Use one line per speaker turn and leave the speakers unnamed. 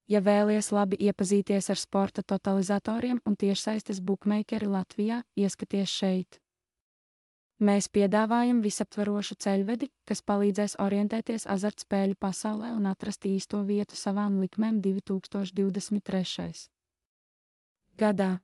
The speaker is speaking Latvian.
Ja vēlies labi iepazīties ar sporta totalizatoriem un tiešsaistes bukmeikeri Latvijā, ieskaties šeit. Mēs piedāvājam visaptvarošu ceļvedi, kas palīdzēs orientēties azartspēļu pasaulē un atrast īsto vietu savām likmēm 2023. gadā.